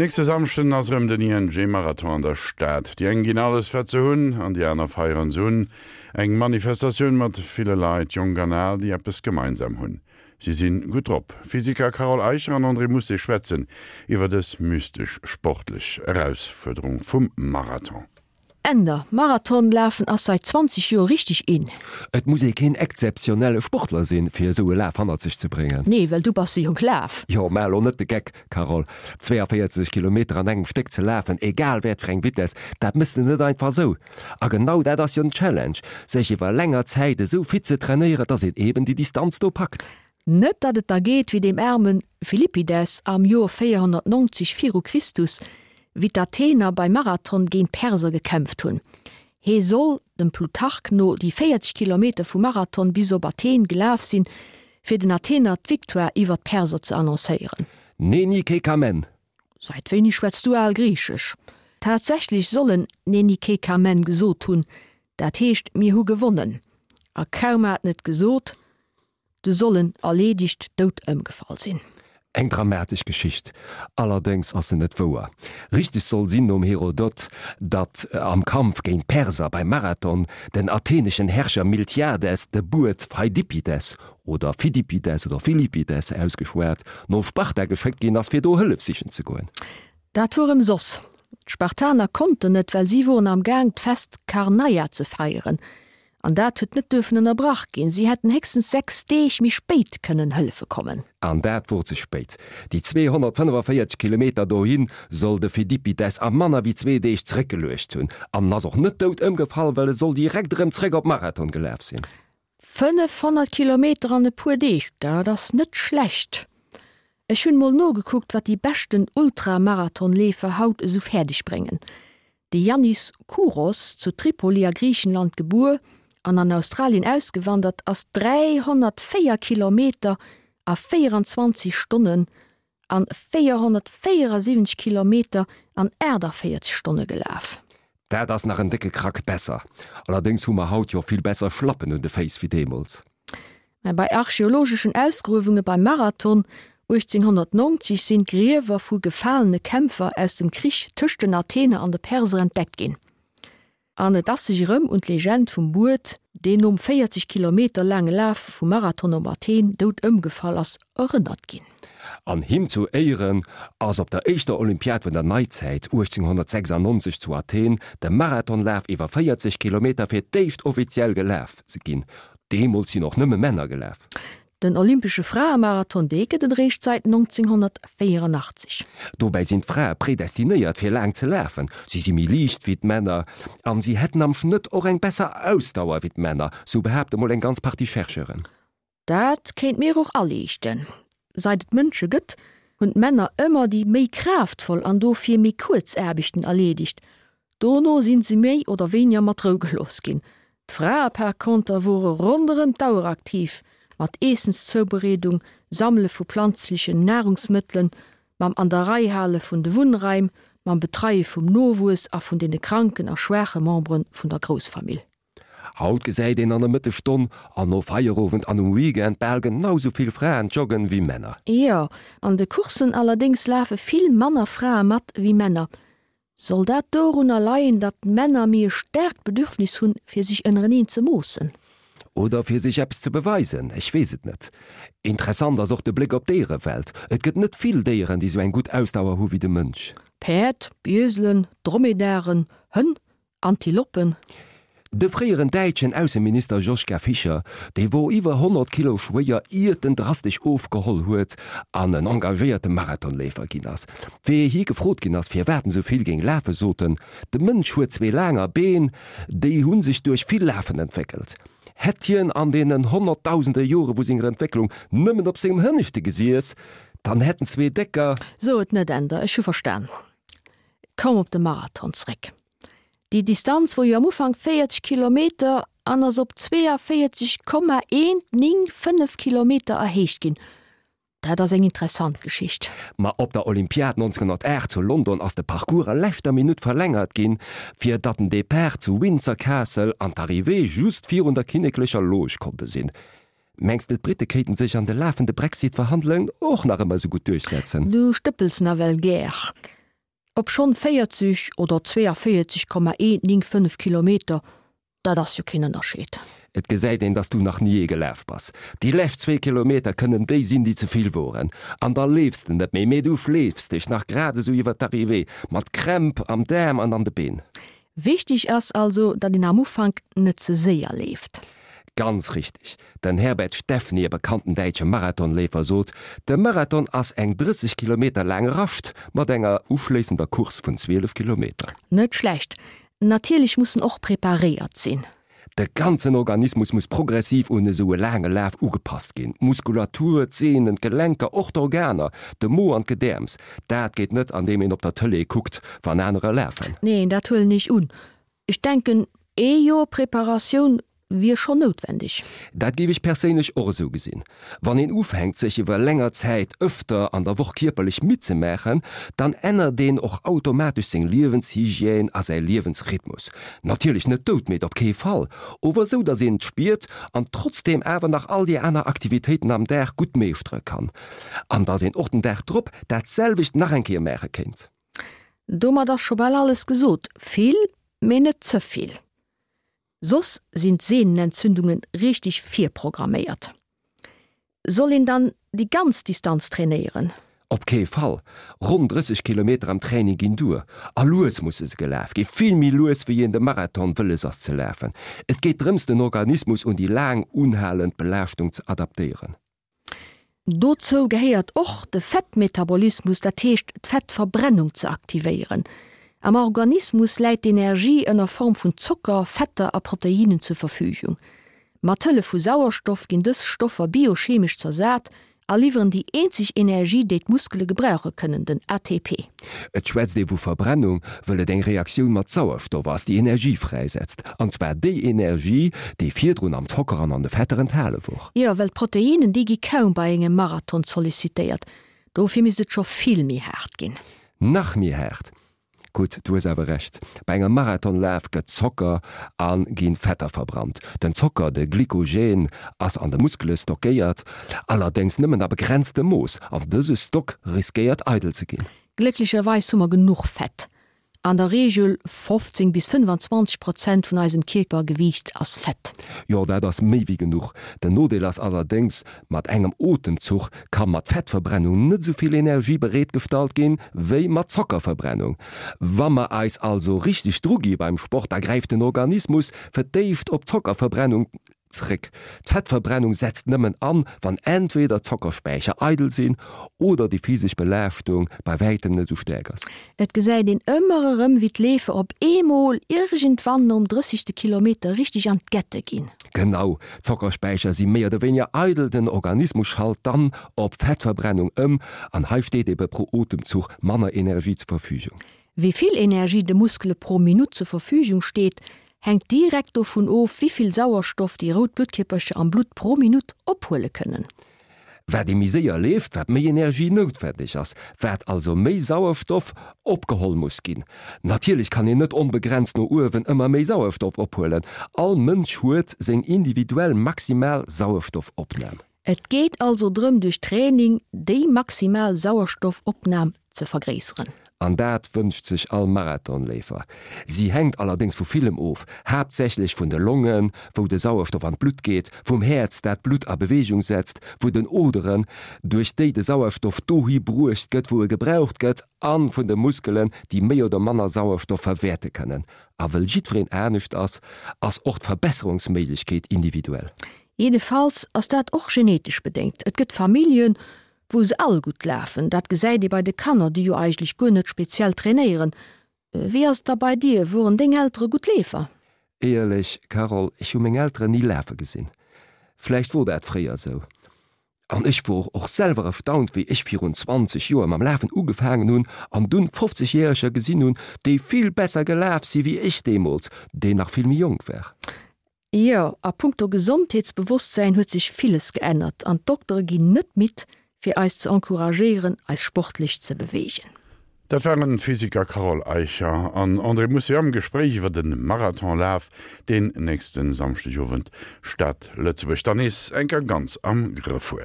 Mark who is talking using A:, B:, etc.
A: Nächste Samschden ass erëm den ING-Marathon an der Stad. Déi eng ginn alles wat se hunn an déi aner feieren se un. Eng Manifestatioun mat ville Leit, jonk an al, déi eppes gemeinsam hunn, si sinn gutt drop. Physiker Carole Eicher an André Mousset schwätzen iwwer dës mystesch sportlech Erausfuerderung vum Marathon.
B: Änder, Marathon lafen ass seit 20 Joer richteg in.
C: Et muss ee keen exzeptionelle Sportler sinn, fir esou e Laf hannert sech ze bréngen.
B: Nee, well du bass se jo gelaf.
C: Jo, maach elo net de Geck, Carole. 42 Kilometer an engem Stéck ze lafen, egal wat fir eng Vitess, dat mëss de net einfach esou. A genau dat ass jo den Challenge, sech iwwer länger Zäit esou fit ze trainéieren, dass een eben déi Distanz do packt.
B: Net datt et da geet wéi deem aarme Philippides am Joer 490 viru Christus, wéi d'Athener beim Marathon géint d'Perser gekämpft hunn. Hee soll, dem Plutarch no, déi 40 Kilometer vu Marathon bis op Athen gelaf sinn, fir den Athener d'Victoire iwwer d'Perser ze annoncéieren.
C: Neni ke kamen!
B: Seit wéini schwätz du al Griichesch? Tatsächlech soll en Neni ke kamen gesot hunn, dat heescht mir hu gewonnen. A kaum hat en et gesot, Du soll en erleedegt dout ëmgefall sinn.
C: Eng dramatesch Geschicht, allerdéngs ass se net wouer. Richteg soll sinn nom Herodot, datt am Kampf géint d'Perser beim Marathon den atheneschen Herrscher Miltiades de Buet Pheidippides, oder Phidippides oder Philippides ausgeschwat, no Sparta geschéckt ginn ass, fir do Hëllef sichen ze goen.
B: Dat wor ëmsoss. D'Spartaner konnten net, well si woren am Gaang d'Fest Karneia ze feieren. An dat huet net duerfen ënnerbrach ginn. Si hätten héchstens 6 Deeg méi spéit kënnen hëllefe kommen.
C: An dat wor ze spéit. Déi 245 Kilometer dohi soll de Phidippides a manner wéi zwee Deeg zeréckgeluecht hunn. An en ass och net dout ëmgefall, well e soll direkt erëm zeréck op Marathon gelaf sinn.
B: 500 Kilometer an e puer Deeg, dat ass net schlecht. Ech hunn mol nogekuckt, wat déi beschten Ultramarathonleefer haut esou fäerdeg bréngen. De Yannis Kouros, zu Tripoli a Griichenland gebuer an an Australien ausgewandert, ass 304 Kilometer a 24 Stonnen an 474 Kilometer an 48 Stonne gelaf.
C: Dat ass nach en décke Krack besser. Allerdéngs hu mer haut jo vill besser Schlappen un de Féiss wéi deemools.
B: Mä bei archeologeschen Ausgruewunge beim Marathon 1890 sinn d'Griewer vu gefalene Kämpfer aus dem Krich tëscht den Athener an de Perser entdeckt ginn. An et ass sech erëm un d'Legend vum Buet, deen nom 40 Kilometer laange Laf vum Marathon op Athen dout ëmgefall ass, erënnert ginn.
C: An him zu Éieren ass op der éischter Olympiad vun der Neizäit 1896 zu Athen de Marathonlaf iwwer 40 Kilometer fir d'éischt offiziell gelaf ginn. Deemools sinn och nëmme Männer gelaf.
B: Den olympesche Fraemarathon, dee gëtt et eréischt säit 1984.
C: Dobäi sinn d'Frae predestinéiert fir laang ze lafen. Si si méi liicht wéi d'Männer an si hätten am Schnëtt och eng besser Ausdauer wéi d'Männer, sou behaapte mol eng ganz Partie Chercheuren.
B: Dat kéint mir och aliichten. Seit et Mënsche gëtt, hunn d'Männer ëmmer déi méi kraaftvoll an dofir méi kuerz Aarbechten erleedegt. Dono sinn se méi oder wéiniger mat Rou gelooss ginn. D'Frae par conter wore ronderëm d'Auer aktiv, mat Eessenszoubereedung, Sammele vu planzlechen Nahrungsmëttelen, mam an der Rei hale vun de Wunnraim, mam Betreie vum Nowuess a vun deene kranken a schwaache Membere vun der Groussfamill.
C: Haut gesäit een an der Mëttesstonn an no Feierowend an um Weekend bal genau sou vill Fraen joggen wéi Männer.
B: Jo, an de Courssen allerdéngs lafe vill manner Frae mat wéi Männer. Soll dat dorunner leien, datt d'Männer méi e staarkt Bedürfnis hunn, fir sech ënnereneen ze moossen?
C: Oder fir sech eppes ze beweisen, ech weess et net. Interessant ass och de Bléck op d'Déierewelt. Et gëtt net vill Déieren, déi sou eng gutt Ausdauer hu wéi de Mënsch.
B: Päerd, Ieselen, Dromedaren, Hënn, Antiloppen.
C: De fréieren däitschen Ausseminister Joschka Fischer, dee wor iwwer 100 Kilo schwéier iert en drastesch ofgeholl huet an en engagéierte Marathonleefer ginn ass. Wéi hie gefrot ginn ass, firwat en sou vill géing lafen, sot en, De Mënsch huet zwee laanger Been, déi hu sech duerch vill Lafen entwéckelt. Hätt hien an deenen honnertdausende Jore vu senger Entwécklung nëmmen op sengem Hënneschte gesiess, dann hätten zwee décker.
B: So et net, Änder, ech hu verstan. Komm op de Marathon zréck. Déi Distanz wor jo am Ufank 40 Kilometer an ass op 42,195 Kilometer erhéicht ginn. Dat ass eng interessant Geschicht.
C: Ma op der Olympiad 1908 zu London ass de Parcours a leschter Minutt verlängert ginn, fir datt den Depart zu Windsor Castle an d'Arrivée just virun der kinneklecher Loge konnte sinn. Mengs de d'Britte kéinten sech an de lafende Brexit-Verhandlungen och nach ëmmer esou gutt duerchsetzen?
B: Du stëppels nawell gär. Obschonn 40 oder 42,195 Kilometer, dat ass jo keen Ënnerscheed.
C: Et gesäit een, dass du nach ni ee gelaf bass. Déi lescht zwee Kilometer kënnen déi sinn, déi ze vill woren. An da leefs de net méi, mee du schleefs dech nach grad esou iwwer d'Arrivée, mat Krämp am Daarm an an de Been.
B: Wichteg ass also, datt een am Ufank net ze séier leeft.
C: Ganz richteg. Den Herbert Steffny, e bekannten däitsche Marathonleefer, sot, De Marathon ass eng 30 Kilometer laang Rascht mat enger uschléissender Course vun 12 Kilometer.
B: Net schlecht. Natierlech muss en och preparéiert sinn.
C: De ganzen Organismus muss progressiv un esou e laange Laf ugepasst ginn, d'Muskulatur, d'Sehnen, d'Gelenker, och d'Organer, de Mo an d'Gedäerms. Dat geet net andeem een op der Tëlee kuckt, wann anerer lafen.
B: Neen, dat huelen ech un. Ech denken, ee Joer Preparatioun wier schonn noutwendeg.
C: Dat géif ech perséinlech och esou gesinn. Wann een ufänkt, sech iwwer länger Zäit ëfter an der Woch kierperlech midd ze maachen, dann ännert een och automatesch seng Liewenshygiène a säi Liewensrhythmus. Natierlech net doudmidd, op kee Fall, ower esou, datt een et spiert an trotzdeem awer nach all déi aner Aktivitéiten am Dag gutt meeschtere kann. An datt een och den Dag drop dat selwecht nach eng Kéier maache kéint.
B: Domat ass scho bal alles gesot. Vill, mee net ze vill. Soss sinn d'Sehnenentzündungen richteg virprogramméiert. Soll een dann déi ganz Distanz trainéieren?
C: Op kee Fall! Ronn 30 Kilometer am Training ginn duer. A lues musse se gelaf ginn, vill méi lues wéi een de Marathon wëlles ass ze lafen. Et geet drëms den Organismus un déi laang unhalend Belaaschtung ze adaptéieren.
B: Dozou gehéiert och de Fettmetabolismus, dat heescht d'Fettverbrennung ze aktivéieren. Am Organismus läit d'Energie ënner Form vun Zocker, Fetter a Proteinnen zur Verfügung. Mat Hëllef vu Sauerstoff ginn dës Stoffer biochemesch zersat a liwweren déi eenzeg Energie, déi d'Muskele gebrauche kënnen, den ATP.
C: Et schwätzt ee vu Verbrennung, wëll et eng Reaktioun mat Sauerstoff ass, déi Energie fräisetzt. An zwar déi Energie, déi virdrun am Zocker an an de Fetter enthale wor.
B: Jo, well d'Proteinnen, déi gi kaum bei engem Marathon sollicitéiert. Dofir misst et scho vill méi haart ginn.
C: Nach méi haart? Gutt, du hues awer Recht. Bei engem Marathonlaf gëtt Zocker a ginn Fetter verbrannt. Den Zocker, de Glykogen, ass an de Muskele stockéiert, allerdéngs nëmmen a begrenztem Mooss, an dëse Stock riskéiert eidel ze ginn.
B: Glécklecherweis hu mer genuch Fett. An der Reegel 15 bis 25 Prozent vun eisem Kierpergewiicht ass Fett.
C: Jo, dat ass méi wéi genuch. Den Nodeel ass allerdéngs, Mat engem Otemzuch ka mat Fettverbrennung net esou vill Energie bereetgestallt ginn, wéi mat Zockerverbrennung. Wa mer eis also richteg dru gi beim Sport, da gräift den Organismus fir d'éischt op d'Zockerverbrennung zréck. D'Fettverbrennung setzt nëmmen an, wann entweder d'Zockerspäicher eidel sinn oder déi physesch Belaaschtung bei wäitem net esou staark ass.
B: Et gesäit een ëmmer erëm, wéi d'Leefer op eemol iergendwann nom drëssegste Kilometer richteg an d'Gette ginn.
C: Genau, d'Zockerspäicher si méi oder wéiniger eidel, den Organismus schalt dann op Fettverbrennung ëm an hei steet ebe pro Otemzuch manner Energie zur Verfügung.
B: Wéi vill Energie de Muskele pro Minutt zur Verfügung steet, hänkt direkt dovun of, wéi vill Sauerstoff déi rout Bluttkierpercher am Blutt pro Minutt ophuele kënnen.
C: Wat ee méi séier leeft, wat méi Energie noutwendeg ass, wat also méi Sauerstoff opgeholl muss ginn. Natierlech kann een net onbegrenzt no uewen ëmmer méi Sauerstoff ophuelen. All Mënsch huet seng individuell maximal Sauerstoffopnam.
B: Et geet also drëm duerch Training déi maximal Sauerstoffopnam ze vergréisseren.
C: An dat wënscht sech all Marathonleefer. Si hänkt allerdéngs vu villem of, haaptsächlech vun de Longen, wou de Sauerstoff an d'Blutt geet, vum Häerz, dat d'Blutt a Beweegung setzt, vun den Oderen, duerch déi de Sauerstoff dohi bruecht gëtt, wou e gebraucht gëtt, a vun de Muskelen, déi méi oder manner Sauerstoff verwäerte kënnen. A wëll jiddwereen anescht ass, ass och d'Verbesserungsméiglechkeet individuell.
B: Jiddefalls ass dat och genetesch bedéngt. Et gëtt Familljen, wou se all gutt lafen. Dat gesäit ee bei de Kanner, déi jo eigentlech guer net speziell trainéieren. Wéi ass et da bei dir, woren deng Eltere gutt Leefer?
C: Éierlech, Carole, ech hu meng Elteren ni lafe gesinn. Vläicht wor dat fréier esou. An ech wor och selwer erstaunt, wéi ech virun 20 Joer mam Lafen ugefaangen hunn an dunn 50 Järeger gesinn hunn, déi vill besser gelaf si wéi ech deemools, deen nach vill méi jonk war.
B: Jo, a punkto Gesondheetsbewosstsäin huet sech villes geännert an d'Doktere ginn net midd, fir eis ze encouragéieren, eis sportlech ze beweegen.
A: Dat waren d'Physiker Carole Eicher an André Mousset am Gespréich iwwer de Marathonlaf, deen nächste Samschdegowend d'Stad Lëtzebuerg dann nees eng Kéier ganz am Grëff huet.